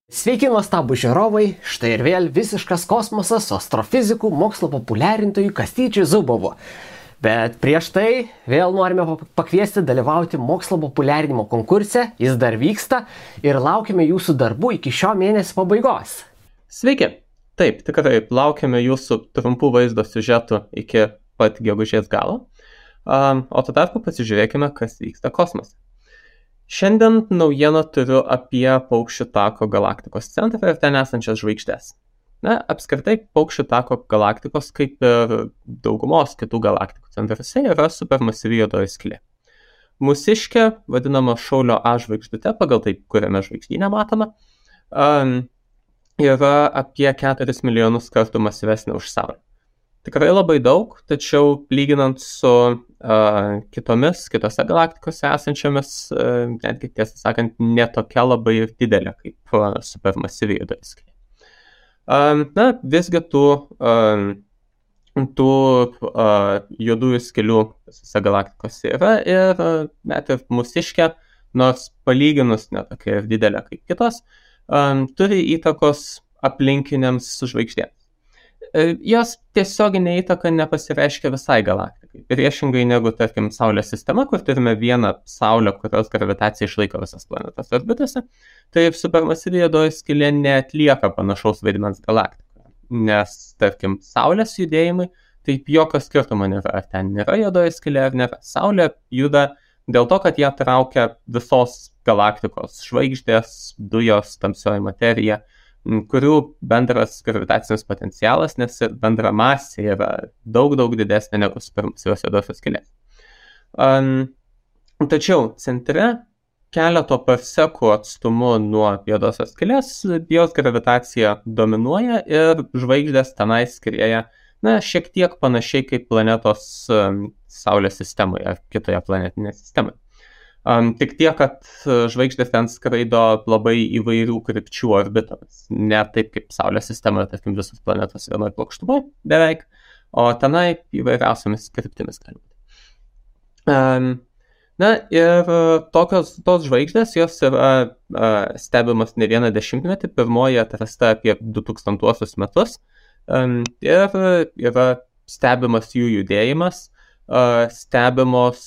Sveiki, nuostabų žiūrovai, štai ir vėl visiškas kosmosas su astrofizikų mokslo populiarintojų Kastyčiu Zubovu. Bet prieš tai vėl norime pakviesti dalyvauti mokslo populiarinimo konkurse, jis dar vyksta ir laukime jūsų darbų iki šio mėnesio pabaigos. Sveiki, taip, tikrai laukiame jūsų trumpų vaizdo siužetų iki pat gegužės galo, o tuo tarpu pasižiūrėkime, kas vyksta kosmose. Šiandien naujieną turiu apie Paukščių tako galaktikos centrą ir ten esančias žvaigždės. Apskritai, Paukščių tako galaktikos, kaip ir daugumos kitų galaktikų centruose, yra supermasyvi juodoji skylė. Mūsiškė, vadinama Šaulio A žvaigždute, pagal tai, kuriame žvaigždynę matome, yra apie 4 milijonus kartų masyvesnė už Saulę. Tikrai labai daug, tačiau lyginant su kitose galaktikose esančiamis, netgi tiesą sakant, netokia labai ir didelė kaip supermasyvi juodoji skylė. Visgi tų juodųjų skylių visose galaktikose yra ir net ir mūsiškė, nors palyginus netokia ir didelė kaip kitos, turi įtakos aplinkiniams žvaigždėms. Jos tiesioginė įtaka nepasireiškia visai galaktikai. Priešingai negu, tarkim, Saulės sistema, kur turime vieną Saulę, kurios gravitacija išlaiko visas planetas orbitose, tai supermasyvi juodoji skylė neatlieka panašaus vaidmens galaktikoje. Nes, tarkim, Saulės judėjimai, taip jokio skirtumo nėra, ar ten nėra juodoji skylė ar nėra. Saulė juda dėl to, kad ją traukia visos galaktikos žvaigždės, dujos, tamsioji materija, kurių bendras gravitacinis potencialas, nes bendra masė yra daug didesnė negu supermasyvios juodosios skylės. Tačiau centre keleto parsekų atstumu nuo juodosios skylės jos gravitacija dominuoja ir žvaigždės tenai skrieja šiek tiek panašiai kaip planetos Saulės sistemoje ar kitoje planetinėje sistemoje. Tik tiek, kad žvaigždės ten skraido labai įvairių krypčių orbitomis. Ne taip kaip Saulės sistemoje, tarkim, visos planetos vienoje plokštumoje beveik, o tenai įvairiausiamis kryptimis gali būti. Ir tos žvaigždės, jos yra stebimas ne vieną dešimtmetį, pirmoji atrasta apie 2000 metus, ir yra stebimas jų judėjimas, stebimos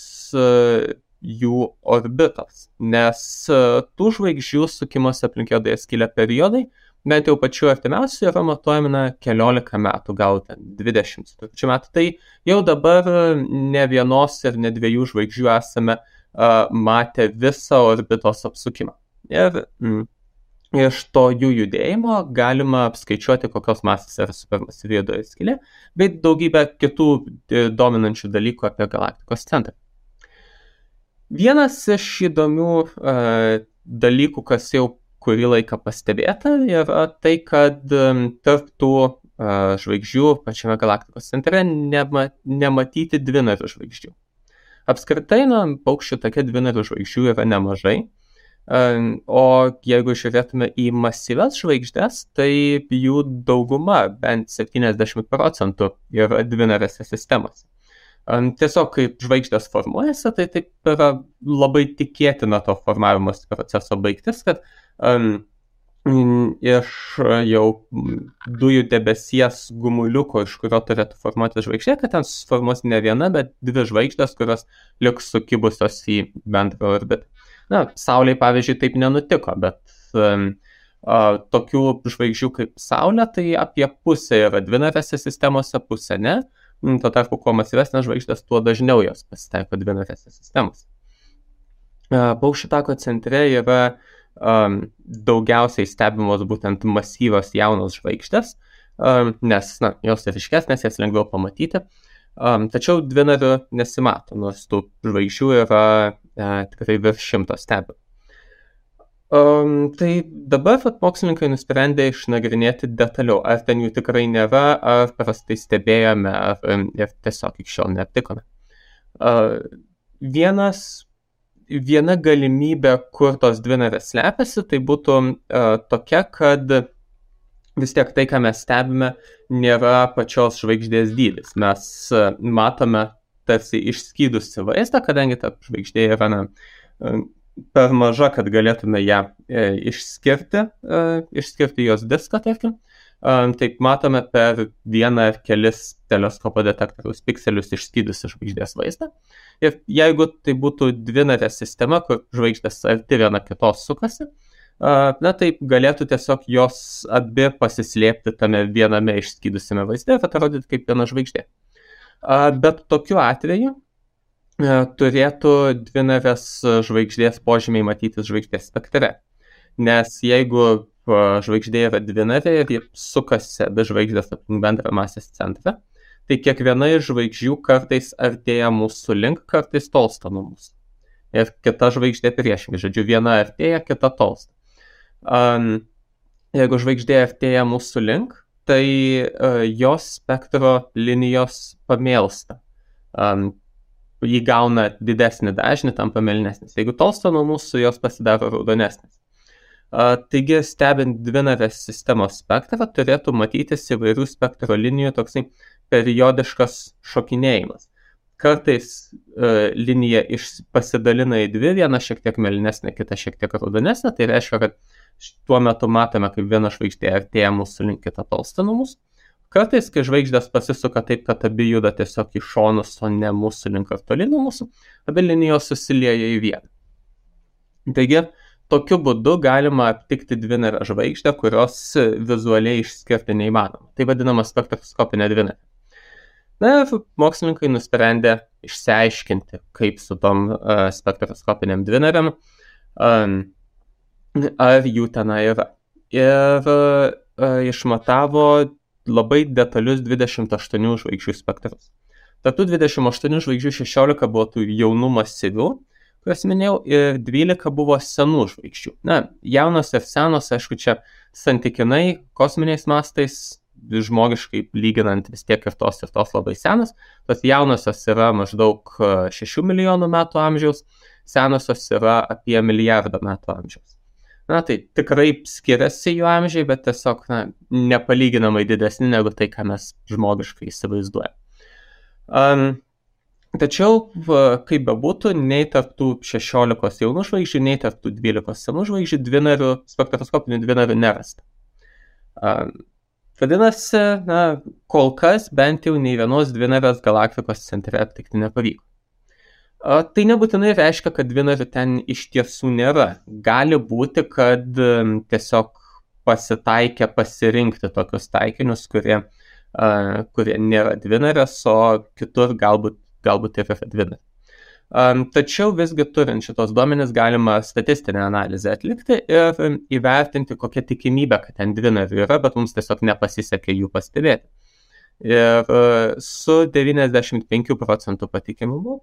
jų orbitos, nes tų žvaigždžių sukimosi aplink juodąją skylę periodai, bent jau pačiu artimiausiu, yra matuojami keliolika metų, gal 20 metų. Tai jau dabar ne vienos ir ne dviejų žvaigždžių esame matę visą orbitos apsukimą. Ir iš to jų judėjimo galima apskaičiuoti, kokios masės yra supermasyvi juodoji skylė, bei daugybę kitų dominančių dalykų apie galaktikos centrą. Vienas iš įdomių dalykų, kas jau kurį laiką pastebėta, yra tai, kad tarp tų žvaigždžių pačiame galaktikos centre nematyti dvinarių žvaigždžių. Apskritai, Paukščių take dvinarių žvaigždžių yra nemažai, o jeigu žiūrėtume į masyvias žvaigždės, tai jų dauguma, bent 70%, yra dvinarėse sistemose. Tiesiog, kaip žvaigždės formuojasi, tai taip yra labai tikėtina to formavimos proceso baigtis, kad iš jau dujų debesies gumuliuko, iš kurio turėtų formuoti žvaigždė, kad ten suformuos ne viena, bet dvi žvaigždės, kurios liks sukibusios į bendrą orbitą. Saulei, pavyzdžiui, taip nenutiko, bet tokių žvaigždžių kaip Saulė, tai apie pusę yra dvinarėse sistemose, pusę ne. Tuo tarpu, kuo masyvesnės žvaigždės, tuo dažniau jos pasitaiko dvinarėse sistemose. Paukščių tako centre yra daugiausiai stebimos būtent masyvios jaunos žvaigždės, nes jos ryškesnės, jas lengviau pamatyti, tačiau dvinarių nesimato, nors tų žvaigždžių yra tikrai virš 100 stebimų. Tai dabar mokslininkai nusprendė išnagrinėti detaliau, ar ten jų tikrai nėra, ar prastai stebėjome, ir tiesiog iki šiol neaptikome. Viena galimybė, kur tos dvinarės slepiasi, tai būtų tokia, kad vis tiek tai, ką mes stebime, nėra pačios žvaigždės dydis. Mes matome tarsi išskydusi vaizdą, kadangi ta žvaigždė yra per maža, kad galėtume ją išskirti jos diską, tarkim. Taip matome per vieną ar kelis teleskopo detektoriaus pikselius išskydusi žvaigždės vaizdą. Ir jeigu tai būtų dvinarė sistema, kur žvaigždės arti viena kitos sukasi, taip galėtų tiesiog jos abi pasislėpti tame viename išskydusiame vaizde ir atrodyti kaip viena žvaigždė. Bet tokiu atveju turėtų dvinarės žvaigždės požymiai matytis žvaigždės spektre. Nes jeigu žvaigždė yra dvinarė ir ji sukasi abi žvaigždės aplink bendrą masės centrą, tai kiekviena iš žvaigždžių kartais artėja mūsų link, kartais tolsta nuo mūsų. Ir kita žvaigždė priešingai, žodžiu, viena artėja, kita tolsta. Jeigu žvaigždė artėja mūsų link, tai jos spektro linijos pamėlsta. Jį gauna didesnį dažnį, tampa mėlynesnis. Jeigu tolsta nuo mūsų, jos pasidaro raudonesnis. Taigi, stebint dvinarės sistemos spektrą, turėtų matytis įvairių spektro linijų toksai periodiškas šokinėjimas. Kartais linija pasidalina į dvi, viena šiek tiek mėlynesnė, kita šiek tiek raudonesnė. Tai reiškia, kad tuo metu matome, kaip viena žvaigždė artėja mūsų link, kita tolsta nuo mūsų. Kartais, kai žvaigždės pasisuka taip, kad abi juda tiesiog į šonus, o ne mūsų link ar toli nuo mūsų, abi linijos susilieja į vieną. Taigi, tokiu būdu galima aptikti dvinarę žvaigždę, kurios vizualiai išskirti neįmanoma. Tai vadinama spektroskopinė dvinarė. Ir mokslininkai nusprendė išsiaiškinti, kaip su tom spektroskopinėm dvinarėm, ar jų tenai yra. Ir išmatavo labai detalius 28 žvaigždžių spektrus. Tarp tų 28 žvaigždžių 16 buvo tų jaunų masyvių, kurias minėjau, ir 12 buvo senų žvaigždžių. Jaunos ir senos, aišku, čia santykinai kosminiais mastais, žmogiškai lyginant vis tiek ir tos labai senos. Tos jaunosios yra maždaug 6 milijonų metų amžiaus, senosios yra apie 1 milijardą metų amžiaus. Tai tikrai skiriasi jų amžiai, bet tiesiog nepalyginamai didesni negu tai, ką mes žmogiškai įsivaizduojame. Tačiau, kaip bebūtų, nei tarp tų 16 jaunų žvaigždžių, nei tarp tų 12 senų žvaigždžių spektroskopinių dvinarių nerasta. Vadinasi, kol kas bent jau nei vienos dvinarės galaktikos centre aptikti nepavyko. Tai nebūtinai reiškia, kad dvinarių ten iš tiesų nėra. Gali būti, kad tiesiog pasitaikė pasirinkti tokius taikinius, kurie nėra dvinarės, o kitur galbūt ir yra dvinarė. Tačiau visgi turint šitos duomenis galima statistinę analizę atlikti ir įvertinti, kokia tikimybė, kad ten dvinarių yra, bet mums tiesiog nepasisekė jų pastebėti. Ir su 95% patikimumu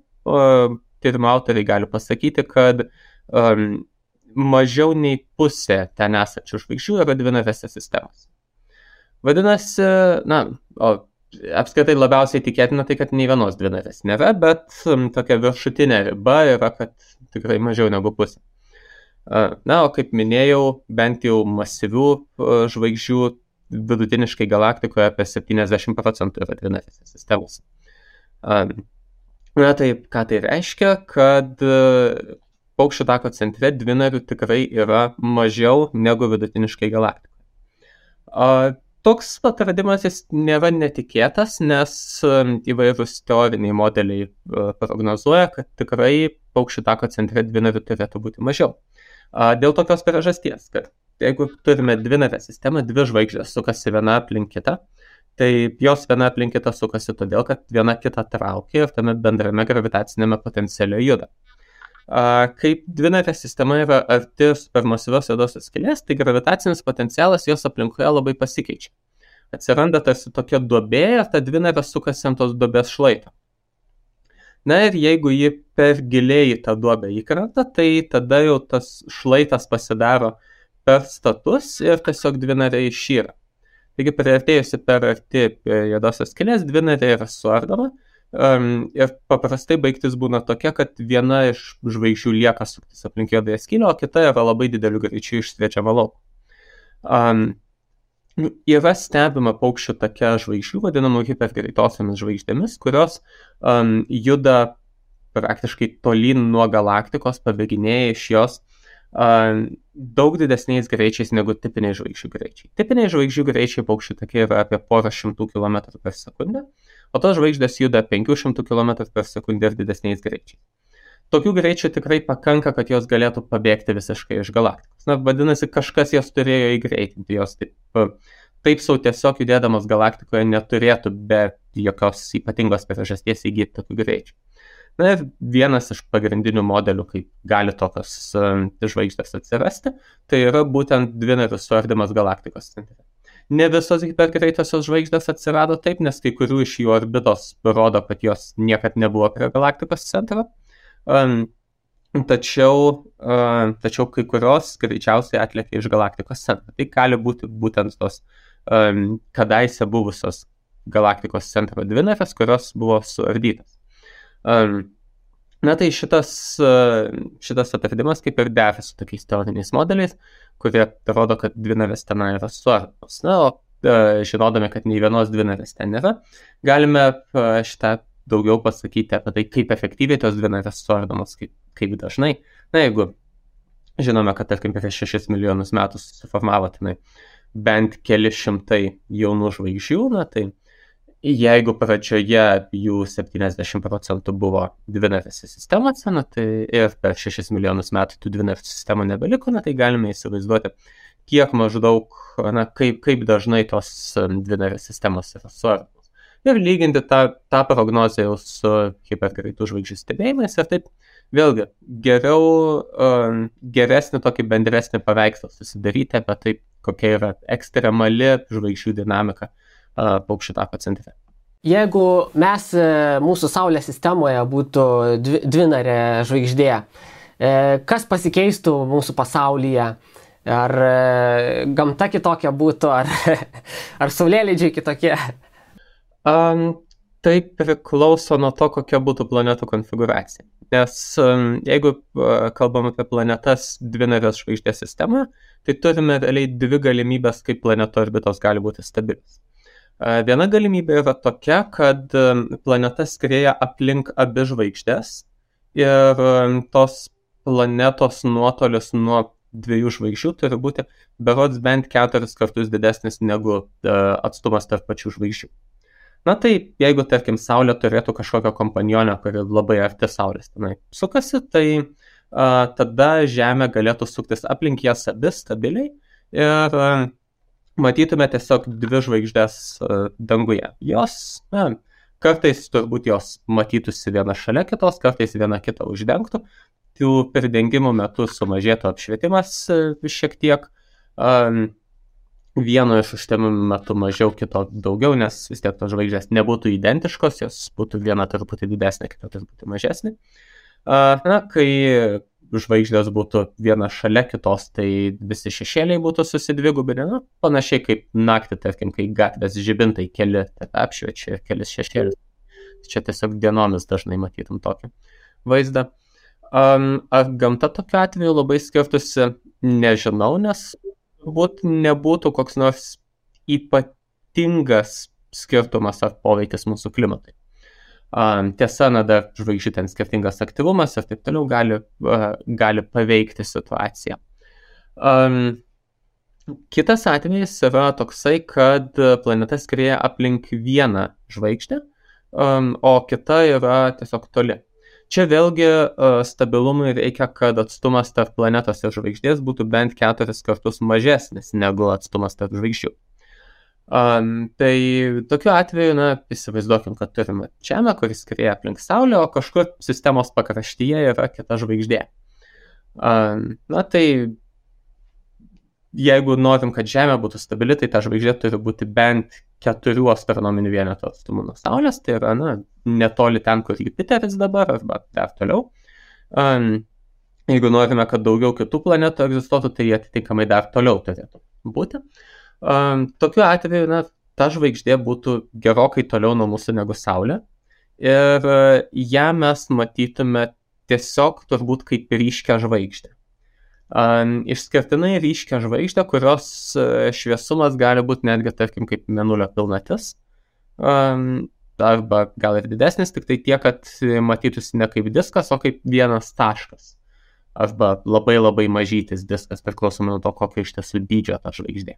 tyrimo autoriai gali pasakyti, kad mažiau nei pusė ten esančių žvaigždžių yra dvinarėse sistemos. Vadinasi, apskritai labiausiai tikėtina tai, kad nei vienos dvinarės nėra, bet tokia viršutinė riba yra, kad tikrai mažiau negu pusė. O kaip minėjau, bent jau masyvių žvaigždžių vidutiniškai galaktikoje apie 70% yra dvinarėse sistemos. Taip, ką tai reiškia, kad Paukščių tako centre dvinarių tikrai yra mažiau negu vidutiniškai galaktikoje. Toks atradimas jis nėra netikėtas, nes įvairūs teoriniai modeliai prognozuoja, kad tikrai Paukščių tako centre dvinarių turėtų būti mažiau. Dėl tokios priežasties, kad jeigu turime dvinarę sistemą, dvi žvaigždės sukasi viena aplink kitą, tai jos viena aplink kitą sukasi todėl, kad viena kitą traukia ir tame bendrame gravitacinėme potenciale juda. Kaip dvinarė sistema yra arti supermasyvios juodosios skylės, tai gravitacinis potencialas jos aplinkoje labai pasikeičia. Atsiranda tarsi tokia duobė ir ta dvinarė sukasi ant tos duobės šlaito. Ir jeigu ji per giliai į tą duobę įkrenta, tai tada jau tas šlaitas pasidaro per status ir tiesiog dvinarė išyra. Taigi priartėjusi per arti juodosios skylės, dvinarė yra suardoma ir paprastai baigtis būna tokia, kad viena iš žvaigždžių lieka suktis aplink juodąją skylę, o kita yra labai dideliu greičiu išsviečiama lauk. Yra stebima Paukščių take žvaigždžių, vadinamų hipergreitosiomis žvaigždėmis, kurios juda praktiškai tolyn nuo galaktikos, pabėginėja iš jos daug didesniais greičiais negu tipiniai žvaigždžių greičiai. Tipiniai žvaigždžių greičiai paukščių takai yra apie porą šimtų kilometrų per sekundę, o tos žvaigždės juda 500 km per sekundę ir didesniais greičiais. Tokių greičių tikrai pakanka, kad jos galėtų pabėgti visiškai iš galaktikos. Na, vadinasi, kažkas jas turėjo įgreitinti, jos taip sau tiesiog judėdamas galaktikoje neturėtų be jokios ypatingos priežasties įgyti tokių greičių. Na ir vienas iš pagrindinių modelių, kaip gali tokios žvaigždės atsirasti, tai yra būtent dvinarių suardymas galaktikos centre. Ne visos hipergreitosios žvaigždės atsirado taip, nes kai kurių iš jų orbitos rodo, kad jos niekad nebuvo prie galaktikos centro. Tačiau kai kurios greičiausiai atlėkė iš galaktikos centro. Tai gali būti būtent tos kadaise buvusios galaktikos centro dvinarės, kurios buvo suardytas. Na tai šitas atradimas kaip ir dera su tokiais teoriniais modeliais, kurie rodo, kad dvinarės ten yra suardomos. Na, o žinodami, kad nei vienos dvinarės ten nėra, galime šitą daugiau pasakyti apie tai, kaip efektyviai tos dvinarės suardomos, kaip dažnai. Na, jeigu žinome, kad tarkim prieš 6 milijonus metų susiformavo tenai bent keli šimtai jaunų žvaigždžių, na tai jeigu pradžioje jų 70% buvo dvinarėse sistemose, na tai ir per 6 milijonus metų tų dvinarių sistemų nebeliko, na tai galime įsivaizduoti, kiek maždaug, na kaip dažnai tos dvinarės sistemos yra suardomos. Ir lyginti tą prognozę jau su hipergreitų žvaigždžių stebėjimais ir taip vėlgi geresnį tokį bendresnį paveikslą susidaryti apie tai, kokia yra ekstremali žvaigždžių dinamika paukščių tako centre. Jeigu mes mūsų Saulės sistemoje būtų dvinarė žvaigždė, kas pasikeistų mūsų pasaulyje? Ar gamta kitokia būtų, ar saulėlydžiai kitokie? Tai priklauso nuo to, kokia būtų planetų konfiguracija. Nes jeigu kalbam apie planetas dvinarės žvaigždės sistemą, tai turime realiai dvi galimybės, kaip planeto orbitos gali būti stabilis. Viena galimybė yra tokia, kad planeta skrieja aplink abi žvaigždės ir tos planetos nuotolis nuo dviejų žvaigždžių turi būti berods bent 4 kartus didesnis negu atstumas tarp pačių žvaigždžių. Na tai, jeigu, tarkim, Saulė turėtų kažkokią kompanionę, kuri labai arti Saulės tenai sukasi, tai tada Žemė galėtų suktis aplink jas abi stabiliai ir matytume tiesiog dvi žvaigždės danguje. Jos, kartais turbūt jos matytųsi viena šalia kitos, kartais viena kitą uždengtų. Tų pridengimų metu sumažėtų apšvietimas šiek tiek. Vieno iš užtemimų metu mažiau, kito daugiau, nes vis tiek tos žvaigždės nebūtų identiškos, jos būtų viena truputį didesnė, kita truputį mažesnė. Na, kai žvaigždės būtų viena šalia kitos, tai visi šešėliai būtų susidvigubinę, na, panašiai kaip naktį, tarkim, kai gatvės žibintai keli apšviečia ir kelis šešėlius. Čia tiesiog dienomis dažnai matytum tokį vaizdą. Ar gamta tokiu atveju labai skirtusi, nežinau, nes nebūtų koks nors ypatingas skirtumas ar poveikis mūsų klimatui. Tiesa, dar žvaigždžių ten skirtingas aktyvumas ir taip toliau gali paveikti situaciją. Kitas atvejis yra toksai, kad planeta skrieja aplink vieną žvaigždę, o kita yra tiesiog toli. Čia vėlgi stabilumui reikia, kad atstumas tarp planetos ir žvaigždės būtų bent 4 kartus mažesnis negu atstumas tarp žvaigždžių. Tai tokiu atveju, įsivaizduokim, kad turime Žemę, kuris skrieja aplink Saulę, o kažkur sistemos pakraštyje yra kita žvaigždė. Tai jeigu norim, kad Žemė būtų stabili, tai ta žvaigždė turi būti bent 4 astronominių vienetų atstumu nuo Saulės, tai yra netoli ten, kur Jupiteris dabar, arba dar toliau. Jeigu norime, kad daugiau kitų planetų egzistuotų, tai atitinkamai dar toliau turėtų būti. Tokiu atveju, ta žvaigždė būtų gerokai toliau nuo mūsų negu Saulė ir ją mes matytume tiesiog turbūt kaip ryškią žvaigždę. Išskirtinai ryškią žvaigždę, kurios šviesumas gali būti netgi, tarkim, kaip Mėnulio pilnatis. arba gal ir didesnis, tik tai tiek, kad matytųsi ne kaip diskas, o kaip vienas taškas. Arba labai labai mažytis diskas, priklausomai nuo to, kokio iš tiesų dydžio ta žvaigždė.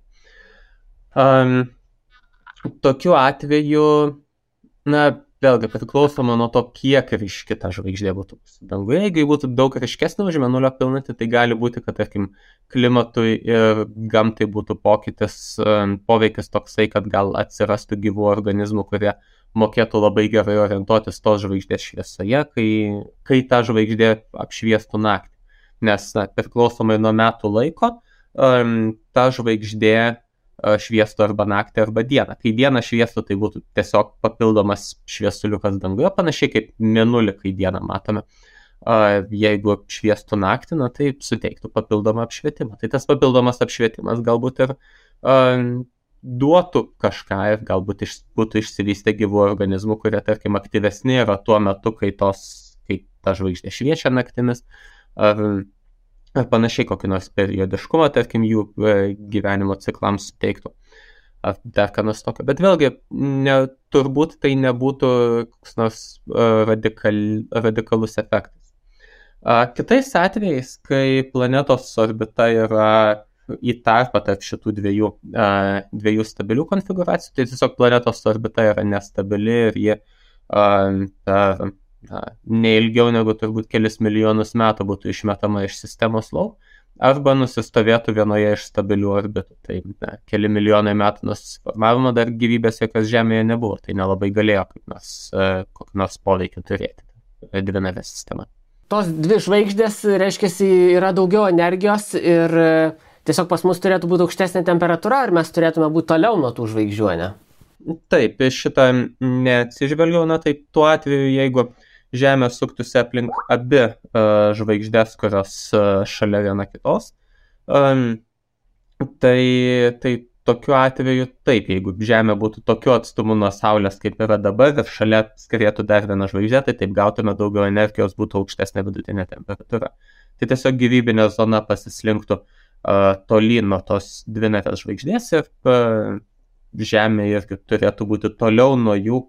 Tokiu atveju, vėlgi priklausoma nuo to, kiek ryški ta žvaigždė būtų danguje. Jeigu būtų daug ryškesnė už Mėnulio pilnatį, tai gali būti, kad, tarkim, klimatui ir gamtai būtų poveikis toksai, kad gal atsirastų gyvų organizmų, kurie mokėtų labai gerai orientuotis tos žvaigždės šviesoje, kai ta žvaigždė apšviestų naktį. Nes priklausomai nuo metų laiko, ta žvaigždė šviestų arba naktį, arba dieną. Kai dieną šviestų, tai būtų tiesiog papildomas šviesuliukas danguje, panašiai kaip Mėnulį, kai dieną matome. Jeigu šviestų naktį, tai suteiktų papildomą apšvietimą. Tai tas papildomas apšvietimas galbūt ir duotų kažką ir galbūt būtų išsivystę gyvų organizmų, kurie, tarkim, aktyvesni yra tuo metu, kai ta žvaigždė šviečia naktimis, ar panašiai kokį nors periodiškumą, tarkim, jų gyvenimo ciklams suteiktų. Ar dar ką nors tokio. Bet vėlgi, turbūt tai nebūtų koks nors radikalus efektas. Kitais atvejais, kai planetos orbita yra į tarpą tarp šitų dviejų stabilių konfiguracijų, tai tiesiog planetos orbita yra nestabili ir ji neilgiau negu turbūt kelis milijonus metų būtų išmetama iš sistemos lauk, arba nusistovėtų vienoje iš stabilių orbitų. Tai keli milijonai metų nuo susiformavimo dar gyvybės jokios Žemėje nebuvo, tai nelabai galėjo kokį nors poveikį turėti dvinarė sistema. Tos dvi žvaigždės, reiškia, yra daugiau energijos ir tiesiog pas mus turėtų būti aukštesnė temperatūra, ar mes turėtume būti toliau nuo tų žvaigždžių, ne? Taip, šitą neatsižvelgiau, tai tuo atveju, jeigu Žemė suktųsi aplink abi žvaigždės, kurios šalia viena kitos, tai tokiu atveju taip, jeigu Žemė būtų tokiu atstumu nuo Saulės, kaip yra dabar, ir šalia skrietų dar viena žvaigždė, tai taip gautume daugiau energijos, būtų aukštesnė vidutinė temperatūra. Tai tiesiog gyvybinė zona pasislinktų tolyn nuo tos dvinarės žvaigždės ir Žemė irgi turėtų būti toliau nuo jų,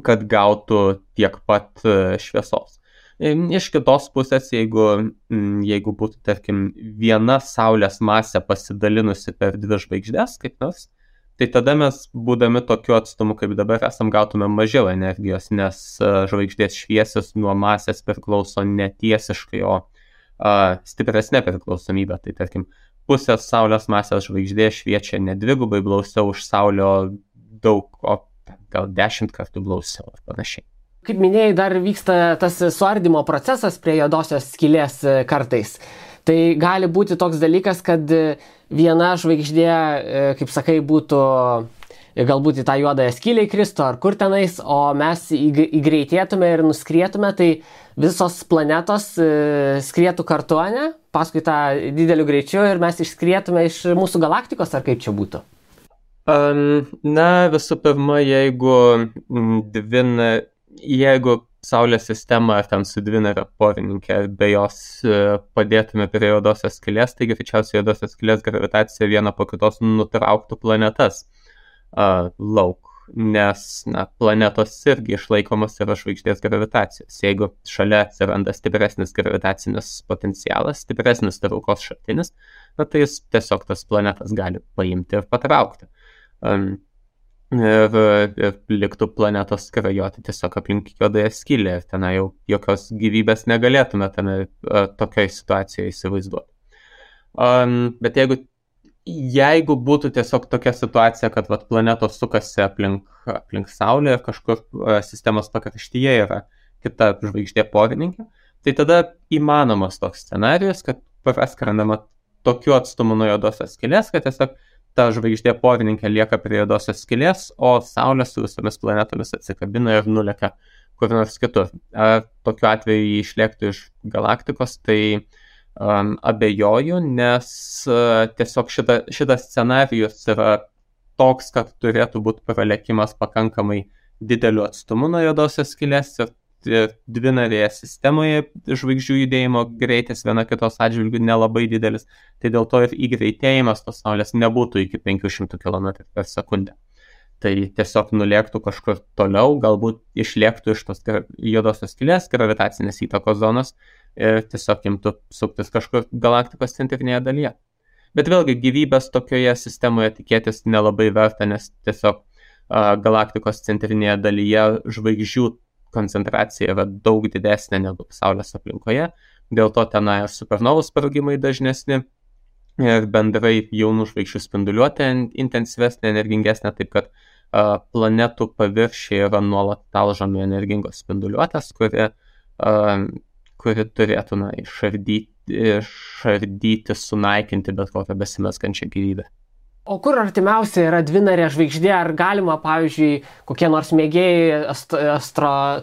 kad gautų tiek pat šviesos. Iš kitos pusės, jeigu būtų, tarkim, viena Saulės masė pasidalinusi per dvi žvaigždės, kaip nors, tai tada mes, būdami tokiu atstumu, kaip dabar esam, gautume mažiau energijos, nes žvaigždės šviesos nuo masės priklauso netiesiškai, o stipresnė priklausomybė. Tai, tarkim, pusės Saulės masės žvaigždė šviečia ne dvigubai blausiau už Saulę, daug, o gal 10 kartų blausiau ar panašiai. Kaip minėjai, dar vyksta tas suardymo procesas prie juodosios skylės kartais. Tai gali būti toks dalykas, kad viena žvaigždė, kaip sakai, būtų galbūt į tą juodąją skylę įkristų ar kur tenais, o mes įgreitėtume ir nuskrietume, tai visos planetos skrietų kartu, ne? Paskui tą dideliu greičiu ir mes išskrietume iš mūsų galaktikos, ar kaip čia būtų? Visų pirma, jeigu Saulės sistema ar ten su dvinare porininkė be jos padėtume prie juodosios skylės, tai greičiausiai juodosios skylės gravitacija viena po kitos nutrauktų planetas lauk, nes planetos irgi išlaikomas yra žvaigždės gravitacijos. Jeigu šalia atsiranda stipresnis gravitacinis potencialas, stipresnis traukos šaltinis, tai jis tiesiog tas planetas gali paimti ir patraukti. Ir liktų planetos skrajoti tiesiog aplink juodąją skylę ir ten jau jokios gyvybės negalėtume ten tokiai situacijoje įsivaizduoti. Bet jeigu būtų tiesiog tokia situacija, kad planetos sukasi aplink Saulę ir kažkur sistemos pakraštyje yra kita žvaigždė porininkė, tai tada įmanomas toks scenarijus, kad praskrendama tokiu atstumu nuo juodosios skylės, kad tiesiog ta žvaigždė porininkė lieka prie juodosios skylės, o Saulė su visomis planetomis atsikabina ir nulekia kur nors kitur. Ar tokiu atveju jį išlėktų iš galaktikos, tai abejoju, nes tiesiog šitas scenarijus yra toks, kad turėtų būti pralekimas pakankamai dideliu atstumu nuo juodosios skylės ir dvinarėje sistemoje žvaigždžių judėjimo greitis viena kitos atžvilgių nelabai didelis, tai dėl to ir įgreitėjimas tos Saulės nebūtų iki 500 km per sekundę. tai tiesiog nulėktų kažkur toliau, galbūt išlėktų iš tos juodosios skylės gravitacinės įtakos zonos ir tiesiog imtų suktis kažkur galaktikos centrinėje dalyje. Bet vėlgi gyvybės tokioje sistemoje tikėtis nelabai verta, nes tiesiog galaktikos centrinėje dalyje žvaigždžių koncentracija yra daug didesnė negu Saulės aplinkoje, dėl to tenai supernovų sprogimai dažnesni ir bendrai jaunų žvaigždžių spinduliuotė intensyvesnė, energingesnė, taip kad planetų paviršiai yra nuolat talžomi energingos spinduliuotės, kuri turėtų išardyti, sunaikinti bet kokią besimeskančią gyvybę. O kur artimiausia yra dvinarė žvaigždė? Ar galima, pavyzdžiui, kokie nors mėgėjai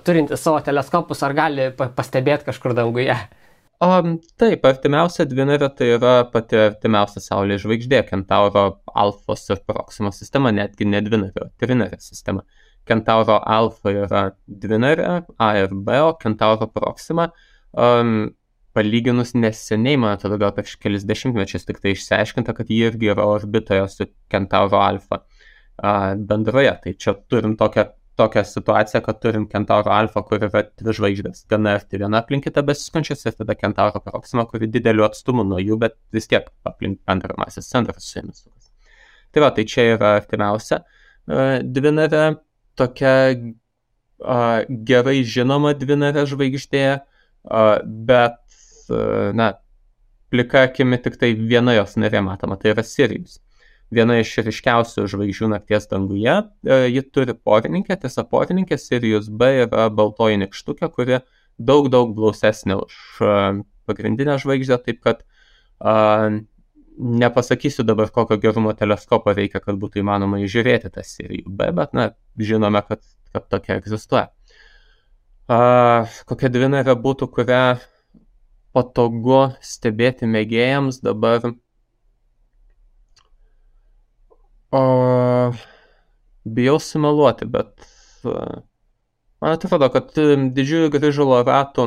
turintys savo teleskopus, ar gali pastebėti kažkur danguje? Taip, artimiausia dvinarė tai yra pati artimiausia Saulės žvaigždė, Kentauro Alfos ir Proximos sistema, netgi ne dvinarė, o trinarė sistema. Kentauro Alfa yra dvinarė, A ir B, o Kentauro Proxima palyginus neseniai, man atrodo, gal prieš kelis dešimtmečius tik tai išsiaiškinta, kad ji irgi yra orbitoje su Kentauro Alfa bendroje. Tai čia turim tokią situaciją, kad turim Kentauro Alfa, kur yra dvi žvaigždės, gana arti viena aplink kitą besiskančias, ir tada Kentauro Proxima, kuri dideliu atstumu nuo jų, bet vis tiek aplink antrą masės centrą su jomis sukas. Tai va, tai čia yra artimiausia dvinarė, tokia gerai žinoma dvinarė žvaigždė, bet, plika akimi tik tai viena jos narė matoma, tai yra Sirijus. Viena iš ryškiausių žvaigždžių nakties danguje, ji turi porininkę, tiesa porininkė Sirius B yra baltoji nykštukė, kuri daug blausesnė už pagrindinę žvaigždę, taip kad nepasakysiu dabar, kokio gerumo teleskopo reikia, kad būtų įmanoma įžiūrėti tą Sirijų B, bet žinome, kad tokia egzistuoja. Kokia dvinarė būtų, kurią patogu stebėti mėgėjams dabar? Bijau sumeluoti, bet man atrodo, kad didžiųjų grįžulo ratų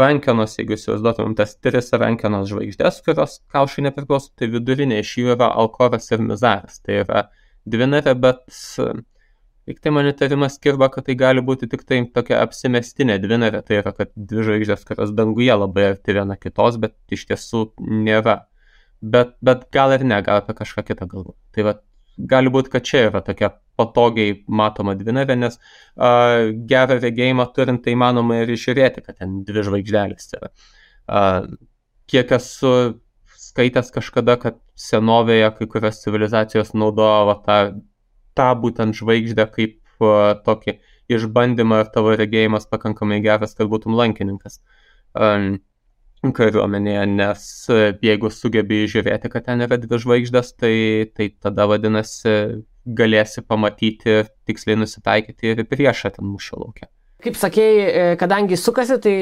rankenos, jeigu įsivaizduotumėm tas tris rankenos žvaigždės, kurios kaušai nepriklauso, tai vidurinė iš jų yra Alkoras ir Mizaras. Tai yra dvinarė, bet tik tai man įtarimas kirba, kad tai gali būti tik tai tokia apsimestinė dvinarė, tai yra, kad dvi žvaigždės, kurios danguje labai arti viena kitos, bet iš tiesų nėra. Bet gal ir ne, gal apie kažką kitą galvo. Tai va, gali būti, kad čia yra tokia patogiai matoma dvinarė, nes gerą regėjimą turint tai įmanoma ir išžiūrėti, kad ten dvi žvaigždelės yra. Kiek esu skaitęs kažkada, kad senovėje kai kurios civilizacijos naudojo tą būtent žvaigždę kaip tokį išbandymą, ir tavo regėjimas pakankamai geras, kad būtum lankininkas kariuomenėje, nes jeigu sugebi žiūrėti, kad ten yra dvi žvaigždės, tai tada vadinasi galėsi pamatyti, tiksliai nusitaikyti ir priešą ten mūšio lauke. Kaip sakėjai, kadangi sukasi, tai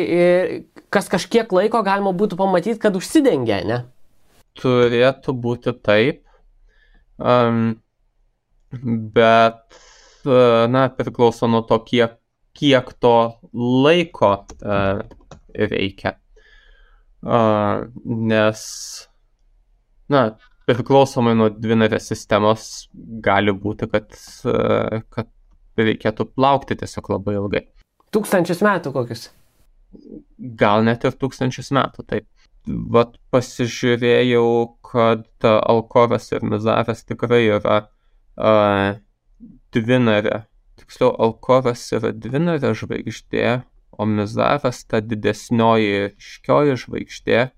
kas kažkiek laiko galima būtų pamatyti, kad užsidengia, ne? Turėtų būti taip, bet priklauso nuo to, kiek to laiko reikia. Nes priklausomai nuo dvinarės sistemos gali būti, kad reikėtų laukti tiesiog labai ilgai. 1000 metų kokius? Gal net ir 1000 metų, taip. Vat pasižiūrėjau, kad Alkoras ir Mizaras tikrai yra dvinarė. Tiksliau, Alkoras yra dvinarė žvaigždė, o Mizaras, ta didesnioji ryškioji žvaigždė,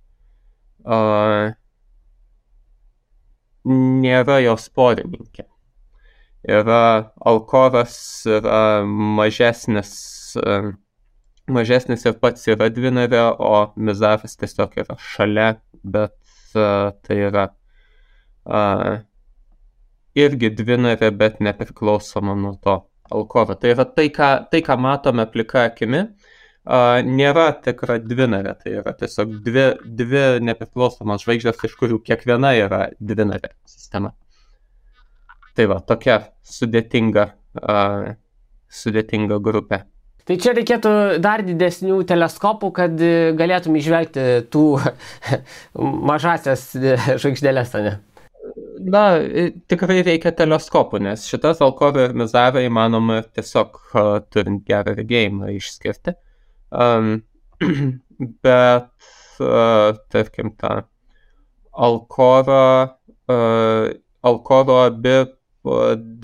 nėra jos porininkė. Alkoras yra mažesnis ir pats yra dvinarė, o Mizaras tiesiog yra šalia, bet tai yra irgi dvinarė, bet nepriklausoma nuo to Alkoro. Tai yra tai, ką matome plika akimi, nėra tikra dvinarė, tai yra tiesiog dvi nepriklausomos žvaigždės, iš kurių kiekviena yra dvinarė sistema. Tai va, tokia sudėtinga grupė. Tai čia reikėtų dar didesnių teleskopų, kad galėtum įžvelgti tų mažasias žvaigždėlės, ne? Tikrai reikia teleskopų, nes šitas Alcoro ir Mizarą įmanoma tiesiog turint gerą regėjimą išskirti. Bet, tarkim, tą Alcoro abi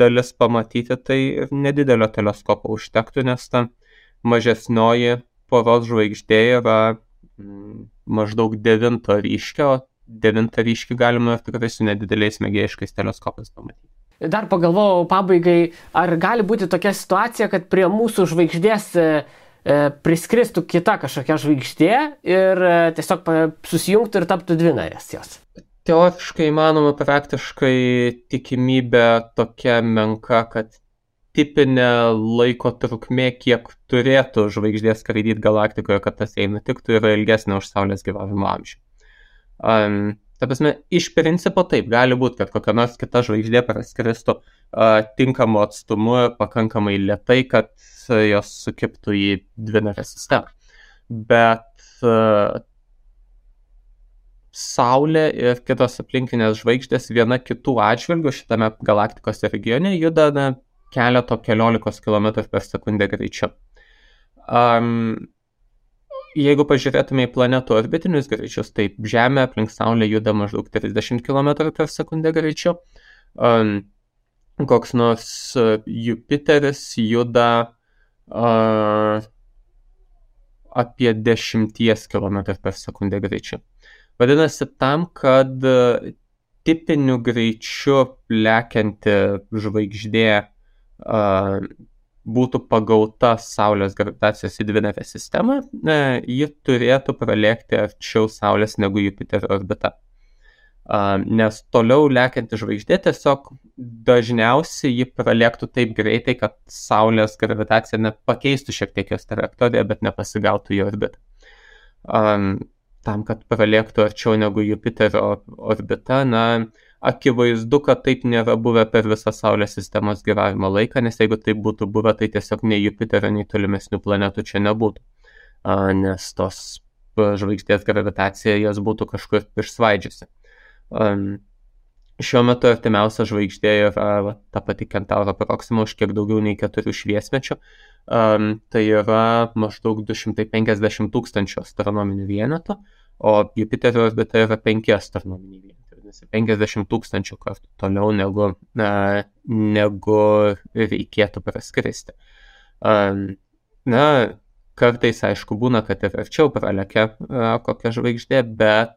dalis pamatyti, tai ir nedidelio teleskopo užtektų, nes ta mažesnioji poros žvaigždė yra maždaug 9 ryškio, o 9 ryškį galima tikrai su nedideliais mėgėjiškais teleskopais pamatyti. Dar pagalvojau pabaigai, ar gali būti tokia situacija, kad prie mūsų žvaigždės priskristų kita kažkokia žvaigždė ir tiesiog susijungtų ir taptų dvinarės jos? Teoriškai įmanoma, praktiškai tikimybė tokia menka, kad tipinė laiko trukmė, kiek turėtų žvaigždės skraidyti galaktikoje, kad tas jai nutiktų, yra ilgesnė už Saulės gyvavimo amžių. Ta prasme, iš principo taip, gali būti, kad kokia nors kita žvaigždė praskristų tinkamu atstumu pakankamai lėtai, kad jos sukibtų į dvinarę sistemą. Bet Saulė ir kitos aplinkinės žvaigždės viena kitų atžvilgių šitame galaktikos regione juda keliolikos kilometrų per sekundę greičiu. Jeigu pažiūrėtume į planetų orbitinius greičius, tai Žemė aplink Saulę juda maždaug 30 km per sekundę greičiu. Koks nors Jupiteris juda apie 10 km per sekundę greičiu. Vadinasi, tam, kad tipiniu greičiu lekianti žvaigždė būtų pagauta Saulės gravitacijos į dvinarę sistemą, ji turėtų pralėkti arčiau Saulės negu Jupiterio orbita. Nes toliau lekianti žvaigždė tiesiog dažniausiai ji pralėktų taip greitai, kad Saulės gravitacija nepakeistų šiek tiek jos trajektoriją, bet nepasigautų į orbitą. Tam, kad pralėktų arčiau negu Jupiterio orbita, akivaizdu, kad taip nėra buvę per visą Saulės sistemos gyvavimo laiką, nes jeigu taip būtų buvę, tai tiesiog nei Jupiterio, nei tolimesnių planetų čia nebūtų. Nes tos žvaigždės gravitacija jas būtų kažkur išsvaidžiusi. Šiuo metu artimiausia žvaigždė yra ta pati Kentauro Proxima už kiek daugiau nei 4 šviesmečių. Tai yra maždaug 250 000 astronominių vienetų, o Jupiterio orbita yra 5 astronominiai vienetai. 50 000 kartų toliau negu reikėtų praskristi. Kartais, aišku, būna, kad ir arčiau pralekia kokia žvaigždė, bet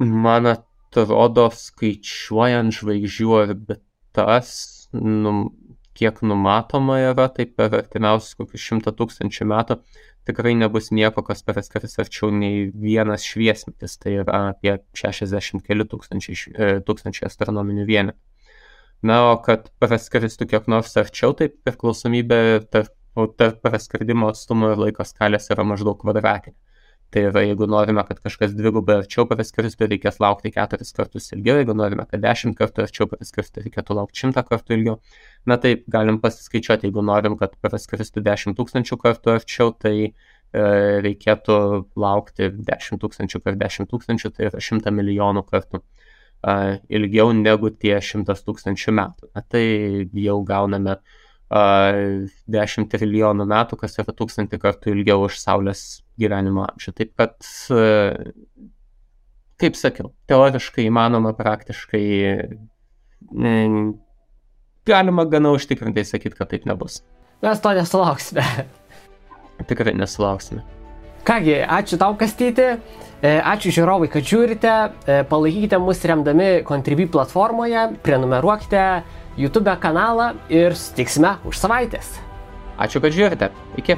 man atrodo, skaičiuojant žvaigždžių orbitas, kiek numatoma yra, tai per artimiausius kokius 100 000 metų tikrai nebus nieko, kas praskris arčiau nei vienas šviesmetis, tai yra apie 60 keli tūkstančiai astronominių vienetų. O kad praskristų kiek nors arčiau, tai priklausomybė tarp praskridimo atstumo ir laiko skalės yra maždaug kvadratinė. Tai yra, jeigu norime, kad kažkas dvigubai arčiau praskristų, reikės laukti 4 kartus ilgiau, jeigu norime, kad 10 kartų arčiau praskristų, reikėtų laukti 100 kartų ilgiau. Taip, galim pasiskaičiuoti, jeigu norim, kad praskristų 10 000 kartų arčiau, tai reikėtų laukti 10 000 per 10 000, tai yra 100 milijonų kartų ilgiau negu tie 100 000 metų. Tai jau gauname 10 trilijonų metų, kas yra 1000 kartų ilgiau už Saulės gyvenimo amžių. Taip kad, kaip sakiau, teoriškai įmanoma, praktiškai galima gana užtikrintai sakyti, kad taip nebus. Mes to nesulauksime. Tikrai nesulauksime. Kągi, ačiū tau, Kastyti. Ačiū žiūrovai, kad žiūrite. Palaikykite mus remdami Contribui platformoje, prenumeruokite YouTube kanalą ir susitiksime už savaitės. Ačiū, kad žiūrite. Iki.